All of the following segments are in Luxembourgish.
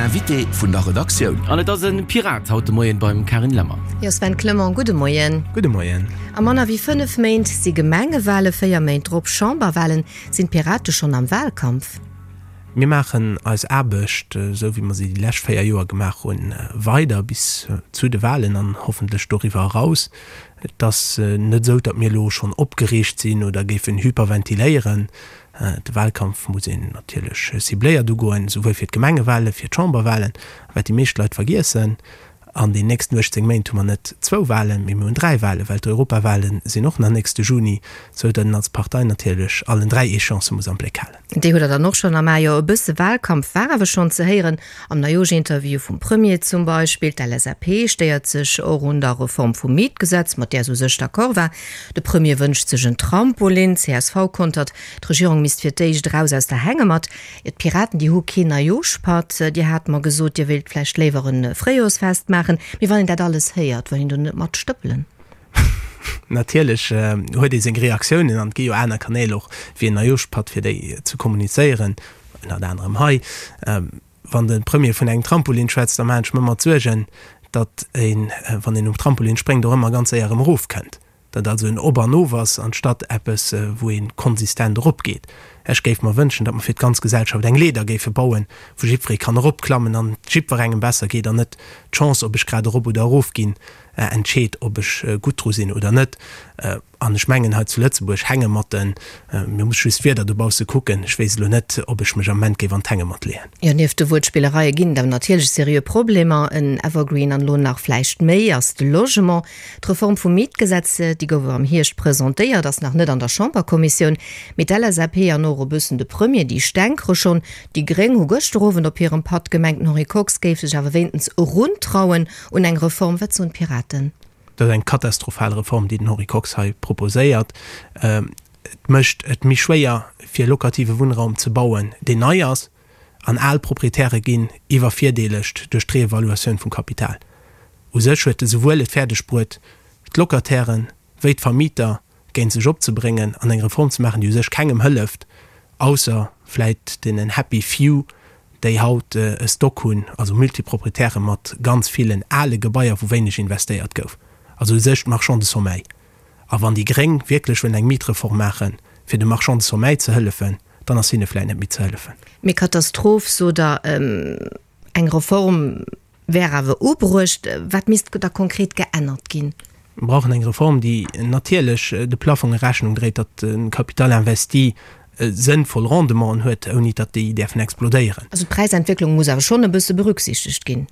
Invité vun der Redaktioun. An et ass e Pirat haut de Moien beim Carine Lemmer. Jo Sven Clement, gudde Moien. Gudde Moien. A manner wéi 5 Méint si Gemengewale, 4 Méint drop Chamberwalen. Sinn d'Pirate schonn am Walkampf? Mir maachen eis Aarbecht, esou wéi mer se déi lescht 4 Joer gemaach hunn, weider bis zu de Walen an hoffentlech doriwwer eraus. Et ass net esou, datt mir elo schonn opgereegt sinn oder géifen hyperventiléieren. De Wahlkampf muss een natierlech cibléiert ugoen, souwuel fir d'Gemengewale, fir d'Chamberwalen. A wat déi meescht Leit vergiessen, An den nächsten 18 Méint hu mer net zwou Walen, mee mir hunn dräi Walen, well d'Europawale sinn och nach nächste Juni, sou datt een als Partei natierlech allen dräi Échéancë muss am Bléck halen. Déi hutt Der dann och schonn am A. Jo, e bësse Wahlkampf war awer schonn ze héieren, am Neijooschinterview vum Premier zum Beispill. D'LSAP stéiert sech och un der Reform vum Mietgesetz, mat där se u sech d'accord war. De Premier wënscht sech en Trampolin. Csv kontert, d'Regierung misst fir d'éischt eraus aus der Hängematt. D'Piraten, déi hu keen Neijooschpatt. Dir hat mer gesot, Dir wéilt vläicht léiwer e Fréijoersfest maachen. Mee wann een dat alles héiert, wëll een do net mat stëppelen? Natierlech huet ee seng Reaktiounen an et gi jo aner Kanäl och wéi en Neijooschpatt fir déi ze kommunizéieren, ënnert anerem hei. Wann de Premier vun engem Trampolin schwätzt, da maachen ech mer ëmmer d'Suergen, datt een, wann een um Trampolin spréngt, och ëmmer ganz séier erëm erofkënnt. Datt also en Op an Of ass, anstatt eppes, wou ee konsistent eropgeet. Ech géif mer wënschen, datt mer fir d'ganz Gesellschaft eng Leeder géife bauen, wou jiddweree kann eropklammen an et jiddwerengem besser geet an net d'Chance, ob ech grad erop oder erofginn, entscheet, ob ech gutt dru sinn oder net. An ech mengen, hei zu Lëtzebuerg Hängematten, mir muss just d'Wieder dobausse kucken, ech weess elo net, ob ech mech am Ament géif an d'Hängematt leeën. Jo, nieft de Wuertspillereie ginn et awer natierlech seriö Problemer. En Evergreen an elo nach vläicht méi ass de Logement. D'Reform vum Mietgesetz, déi gouf am Hierscht presentéiert, ass nach net an der Chamberkommissioun. Mee d'LSAP an och e bëssen de Premier, déi stänkere schonn. Déi Gréng hu gëschter Owend op hirem Patt gemengt, den Henri Kox géif sech awer wéintens eruntrauen un eng Reform. Wat soen d'Piraten? Dat ass eng katastrophal Reform, déi den Henri Kox hei proposéiert. Et mécht et méi schwéier, fir locative Wunnraum ze bauen, deen nei ass. An al Proprietäre ginn iwwervirdeelegt duerch d'Reevaluatioun vum Kapital. U sech huet e souwuel et fäerdeg bruet, d'Locatairen wéi d'Vermieter géint sech opzebréngen an eng Reform ze maachen, déi u sech kengem hëlleft, ausser vläit deenen happy few, déi haut e Stock hunn, also Multiproprietäre mat ganz villen ale Gebaier, wou wéineg investéiert gouf, also u sech d'Marchands de sommeil. A wann déi Gréng wierklech wëllen eng Mietreform maachen, fir de Marchands de sommeil ze hëllefen, dann ass hinne vläit net méi ze hëllefen. Mee Katastroph, sot Der, eng Reform wär awer ubruecht. Wat misst da konkret geännert ginn? Mir brauchen eng Reform, déi natierlech de Plafonge Rechnung dréit, datt de Capital investi sënnvoll Rendementen huet, ouni datt déi däerfen explodéieren. Also d'Präisentwécklung muss awer schonn e bësse berücksichtegt ginn.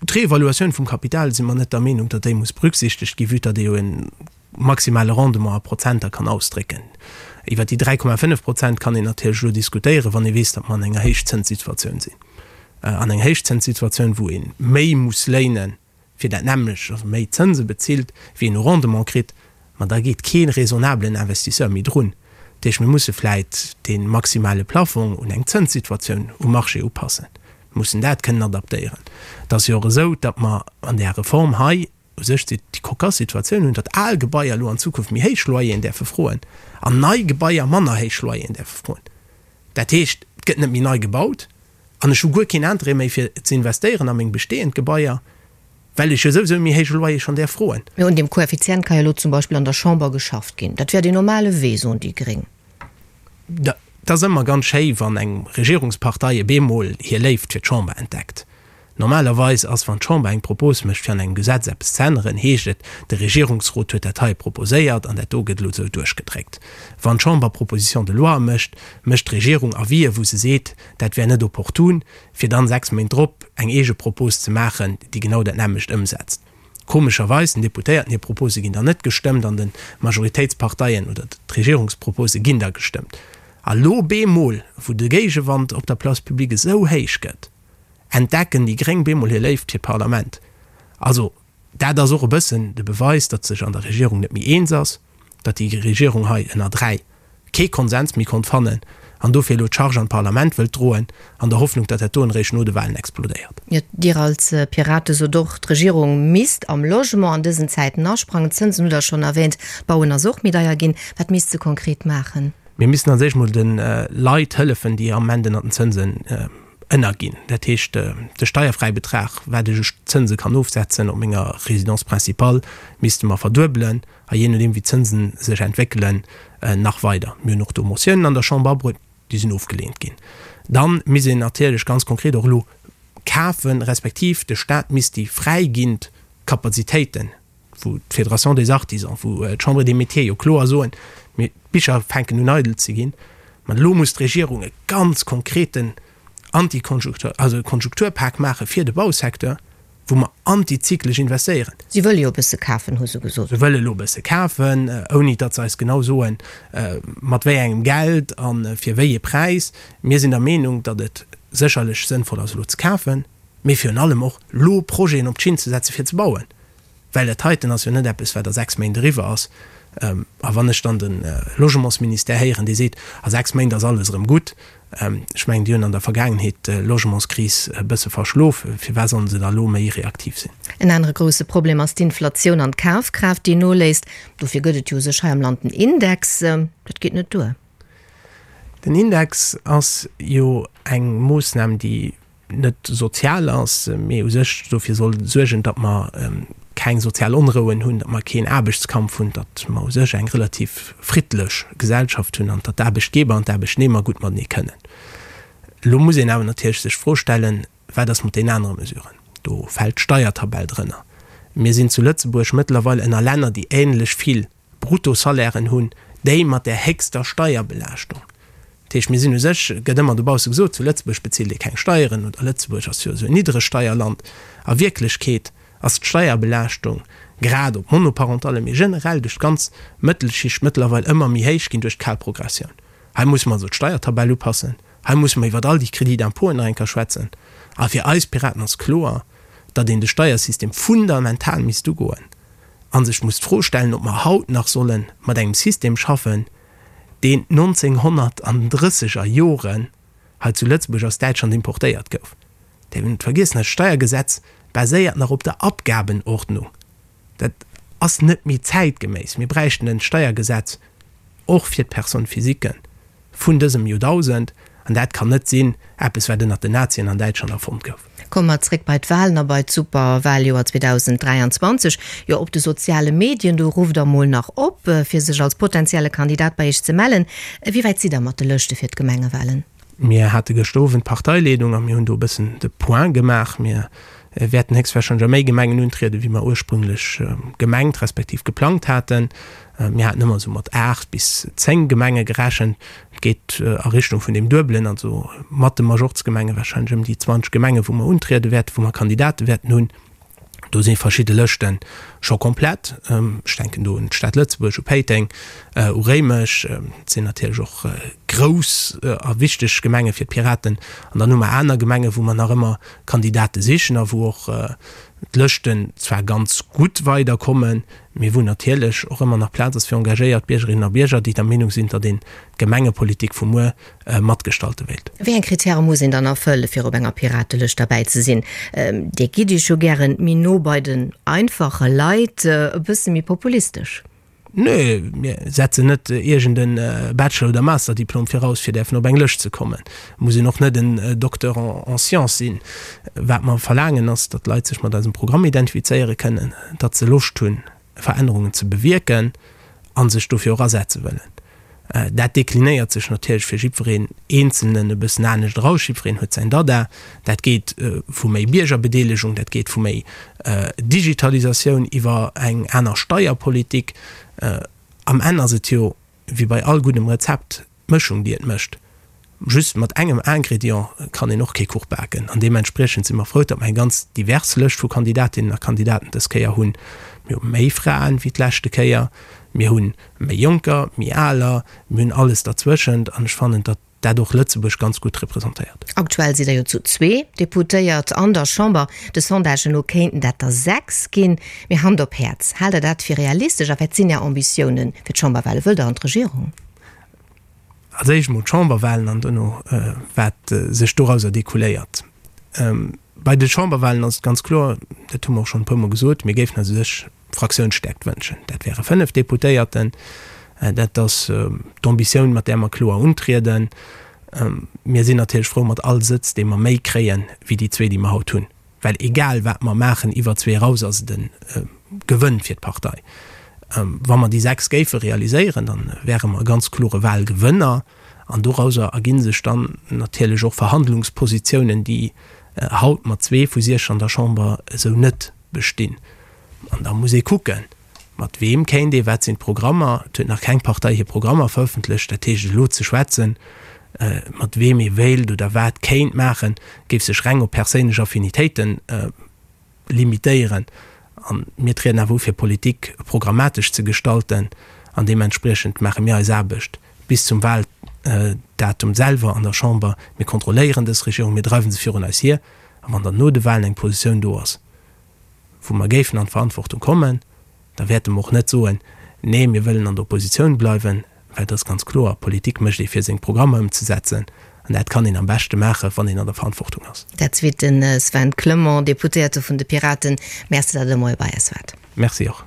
D'Reevaluatioun vum Kapital si mer net der Meenung, datt déi muss berücksichtegt ginn, vue datt ee jo e maximale Rendement a Prozenter kann ausdrécken. Iwwer déi 3,5 Prozent kann een natierlech elo diskutéieren, wann ee weess, datt mer an enger Héichzënssituatioun sinn. An eng Héichzënssituatioun, wou ee méi muss léinen, fir dat nämmlecht, also méi Zënse bezilt, wéi een u Rendement kritt, ma da geet kee raisonnablen Investisseur méi drun. Dat heescht, mir musse vläit dee maximale Plafong un eng Zënssituatioun um Marché upassen. Mir mussen dat kënnen adaptéieren. Et ass jo och esou, datt mer an där Reform hei u sech déi cocasse Situatioun hunn, datt al Gebaier elo an Zukunft méi héich Loyeren däerfe froen an nei Gebaier manner héich Loyeren däerfe froen. Dat heescht, et gëtt net méi nei gebaut an ech hu guer keen Interêt méi fir ze investéieren a meng bestehend Gebaier, well ech jo souwisou e méi héije Loyer schonn däerf froen. Mee un deem Koeffizient ka jo elo zum Beispill an der Chamber geschafft ginn. Dat wär deen normale Wee, soen déi Gréng. Et ass ëmmer ganz schéi, wann eng Regierungspartei op eemol hir Léift fir d'Chamber entdeckt. Normalerweis ass, wann d'Chamber eng Propos mécht, fir an engem Gesetz eppes ze änneren, heescht et, de Regierungsrot huet dat hei proposéiert an dat do gëtt elo esou duerchgedréckt. Wann d'Chamber Propositions de loi mécht, mécht d'Regierung Avisen, wou se seet, dat wär net opportun, fir dann 6 Méint drop eng eege Propos ze maachen, déi genau dat nämmlecht ëmsetzt. Komescherweis, den Deputéierten hir Propose ginn dann net gestëmmt an de Majoritéitsparteien oder d'Regierungspropose ginn da gestëmmt. A lo bemol, wou de Géigewand op der Place publique esou héich gëtt, entdecken déi Gréng bemol hir Léift fir d'Parlament. Also dat ass och e bëssen de Beweis, datt sech an der Regierung net méi eens ass, datt déi Regierung hei ënner 3 kee Konsens méi konnt fannen an dofir elo d'Charge an d'Parlament wëllt droen, an der Hoffnung, datt dat doen eréischt no de Wahlen explodéiert. Jo, Dir als Pirate sot och, d'Regierung misst am Logement an dësen Zäiten asprangen. D'Zënsen hutt Der schonn erwähnt, d'Bauen ass och méi deier ginn. Wat misst se konkret maachen? Mir missten als éischt mol de Leit hëllefen, déi am Ament ënnert den Zënsen. Ënnerginn. Dat heescht, de Steierfräibetrag, wat ech u Zënse kann ofsetzen op menger Résidence principale, misste mer verduebelen a jee nodeem wéi d'Zënsen sech entwéckelen, nach weider. Mir hunn och do Motiounen an der Chamber abruet, déi sinn ofgeleent ginn. Da misst een natierlech ganz konkret och elo kafen, respektiv de Stat misst déi fräiginnd Kapazitéiten, wou d'Fédération des Artisans, wou d'Chambre des Métiers jo kloer soen, mir, d'Bicher fänken un eidel ze ginn, ma elo muss d'Regierung e ganz konkreten Antikonjunktur, also e Konjunkturpak maache fir de Bausecteur, wou mer antizyklesch investéieren. Si wëlle jo e bësse kafen, hu se gesot. Se wëlle elo e bësse kafen, ouni datt se eis genau soen, mat wéi engem Geld a fir wéi ee Präis. Mir sinn der Meenung, datt et sécherlech sënnvoll ass, elo ze kafen, mee virun allem och elo Projeten op d'Schinn ze setzen, fir ze bauen. Well dat heiten ass jo net eppes, wat a 6 Méint eriwwer ass. A wann ech dann de Logementsministère héieren, dee seet, a 6 Méint ass alles erëm gutt, ech mengen, déi hunn an der Vergaangenheet d'Logementskris e bësse verschlof, firwat sollen se da elo méi reaktiv sinn? En anere grousse Problem ass d'Inflatioun an d'Kafkraaft, déi noléisst. Dofir gëtt et jo u sech hei am Land den Index. Dat geet net duer. Den Index ass jo eng Moossnam, déi net sozial ass, mee u sech dofir soll suergen, datt mer keng sozial Onrouen hunn, datt mer keen Aarbechtskampf hunn, datt mer u sech eng relativ friddlech Gesellschaft hunn an datt d'Aarbechtgeber an d'Aarbechtnehmer gutt matenee kënnen. Elo muss een awer natierlech sech d'Fro stellen, Wat ass mat deenen anere Mesuren? Do fält d'Steiertabell drënner. Mir sinn zu Lëtzebuerg mëttlerweil ënner Länner, déi ähnlech vill Bruttosalairen hunn, déi mat där héchster Steierbelaaschtung. Dat heescht, mir sinn u sech, gëtt ëmmer dobausse gesot, zu Lëtzebuerg bezilt ee keng Steieren oder Lëtzebuerg ass jo esou en Niddregsteierland. A Wierklechkeet ass d'Steierbelaaschtung grad op Monoparentalle, mee generell duerch d'ganz Mëttelschicht mëttlerweil ëmmer méi héich ginn duerch d'kal Progressioun. Hei musse mer also d'Steiertabell upassen, hei musse mer iwwert all déi Crédits d'impôten nach eng Kéier schwätzen. A fir eis Piraten ass kloer, datt een de Steiersystem fundamental misst ugoen a sech muss d'Fro stellen, ob mer haut nach solle mat engem System schaffen, deen 1900 an den drësseger Joren hei zu Lëtzebuerg aus Däitschland importéiert gouf. Däerf een net vergiessen, dat Steiergesetz baséiert nach op der Abgabenordnung. Dat ass net méi zäitgeméiss. Mir bräichten en Steiergesetz och fir d'Personne-physiquen. Vun dësem Joerdausend, an dat kann net sinn, eppes wat ënnert den Nazien an Däitschland erfonnt gouf. Komme mer zréck bei d'Wahlen a bei d'Superwahljoer 2023. Jo, op de soziale Medien, do rufft der mol nach op, fir sech als potentielle Kandidat bei iech ze mellen. Wéi wäit sidd der mat de Lëschte fir d'Gemengewahlen? Mir hate gëschter Owend d'Parteileedung a mir hunn do e bëssen de Point gemaach. Mir wäerten héchstwahrscheinlech a méi Gemengen untrieden, wéi mer ursprünglech gemengt respektiv geplangt haten. Mir haten ëmmer esou mat 8 bis 10 Gemenge gerechent. Et geet a Richtung vun deem Duebelen, also mat de Majorzgemenge wahrscheinlech ëm déi 20 Gemenge wou mer untriede wäerten, wou mer Kandidate wäerten hunn. Do si verschidde Lëschte scho komplett. Ech denken do un d'Stad Lëtzebuerg, u Péiteng, u Réimech. Dat sinn natierlech och grouss a wichteg Gemenge fir d'Piraten. An dann hu mer aner Gemengen, wou mer nach ëmmer Kandidate sichen a wou och d'Lëschten zwar ganz gutt weiderkommen, mee wou natierlech och ëmmer nach Plaz ass fir engagéiert Biergerinnen a Bierger, déi der Meenung sinn, datt een d'Gemengepolitik vu muer matgestalte wéilt. Wéi eng Kritäre muss een dann erfëlle fir op enger Piratelëscht derbäi ze sinn? Dir gitt Iech jo gären méi no bei den einfache Leit, e bësse méi populistesch. Nö, mir setzen net iergend en Bachelor oder Masterdiplom viraus fir däerfen op eng Lëscht ze kommen. Et muss een och net en Docteur en sciences sinn. Wat mer verlaangen ass, datt d'Leit sech mat eisem Programm identifizéiere kënnen, datt se Loscht hunn Verännerungen ze bewierken a sech dofir och asetze wëllen. Dat deklinéiert sech natierlech fir jiddwereen Eenzelnen e bëssen anescht eraus. Jiddwereen huet säin Dada. Dat geet vu méi Biergerbedeelegung, dat geet vu méi Digitalisatioun iwwer eng aner Steierpolitik. Am Enn ass et jo, wéi bei all guddem Rezept, d'Mëschung, déi et mécht. Just mat engem Ingrédient kann een och kee Kuch baken. An deementspriechend si mer frou, datt mer eng ganz divers Lëscht vu Kandidatinnen a Kandidaten dës Kéier hunn. Mir hu méi Fraen wéi d'leschte Kéier, mir hu méi Jonker, méi Aler, mir hunn alles derzwëschent an ech fannen, datt dat och Lëtzebuerg ganz gutt representéiert. Aktuell sidd Der jo zu zwee Deputéiert an der Chamber. De Sondagen no kéinten dat der 6 ginn. Mee Hand op Häerz, haalt Der dat fir realistesch a wat sinn Är Ambitiounen fir d'Chamberwale? Wëllt Der an d'Regierung? Als éischt emol d'Chamberwahlen an dono wat sech dorauser découléiert. Bei de Chamberwahlen ass et ganz kloer, dat hu mer och schonn e puermol gesot, mir géifen eis u sech Fraktiounsstäerkt wënschen. Dat wäre 5 Deputéierten. Dat ass d'Ambitioun, mat där mer kloer untrieden. Mir sinn natierlech frou mat all Sëtz, dee mer méi kréien, wéi déi zwee, déi mer haut hunn. Well egal wat mer maachen, iwwer zwee eraus ass et e Gewënn fir d'Partei. Wa mer déi 6 géife realiséieren, da wäre mer e ganz klore Wahlgewënner. An dorauser erginn sech dann natierlech och Verhandlungspositiounen, déi haut mat zwee vu siech an der Chamber esou net bestinn. An da muss ee kucken, mat weem kéint ee, wat sinn d'Programmer. Et huet nach keng Partei hir Programmer verëffentlecht. Dat heescht, elo ze schwätzen, mat weem ee wéilt oder wat kéint maachen, géif sech reng op perséinlech Affinitéiten limitéieren. A mir trieden awer u fir Politik programmatesch ze gestalten an deementspriechend maache mir eis Aarbecht bis zum Wahldatum selwer an der Chamber. Mir kontrolléieren dës Regierung, mir dreiwe se virun eis hier a wann dann no de Wahlen eng Positioun do ass, wou mer géifen an d'Verantwortung kommen, da wäerte mer och net soen, Nee, mir wëllen an der Oppositioun bleiwen, well et ass ganz kloer, Politik mécht ee fir seng Programmer ëmzesetzen an dat kann een am beschte maachen, wann een an der Verantwortung ass. Dat zweet de Sven Clement, Deputéierte vun de Piraten. Merci, datt Der de Moie bei eis waart. Merci och.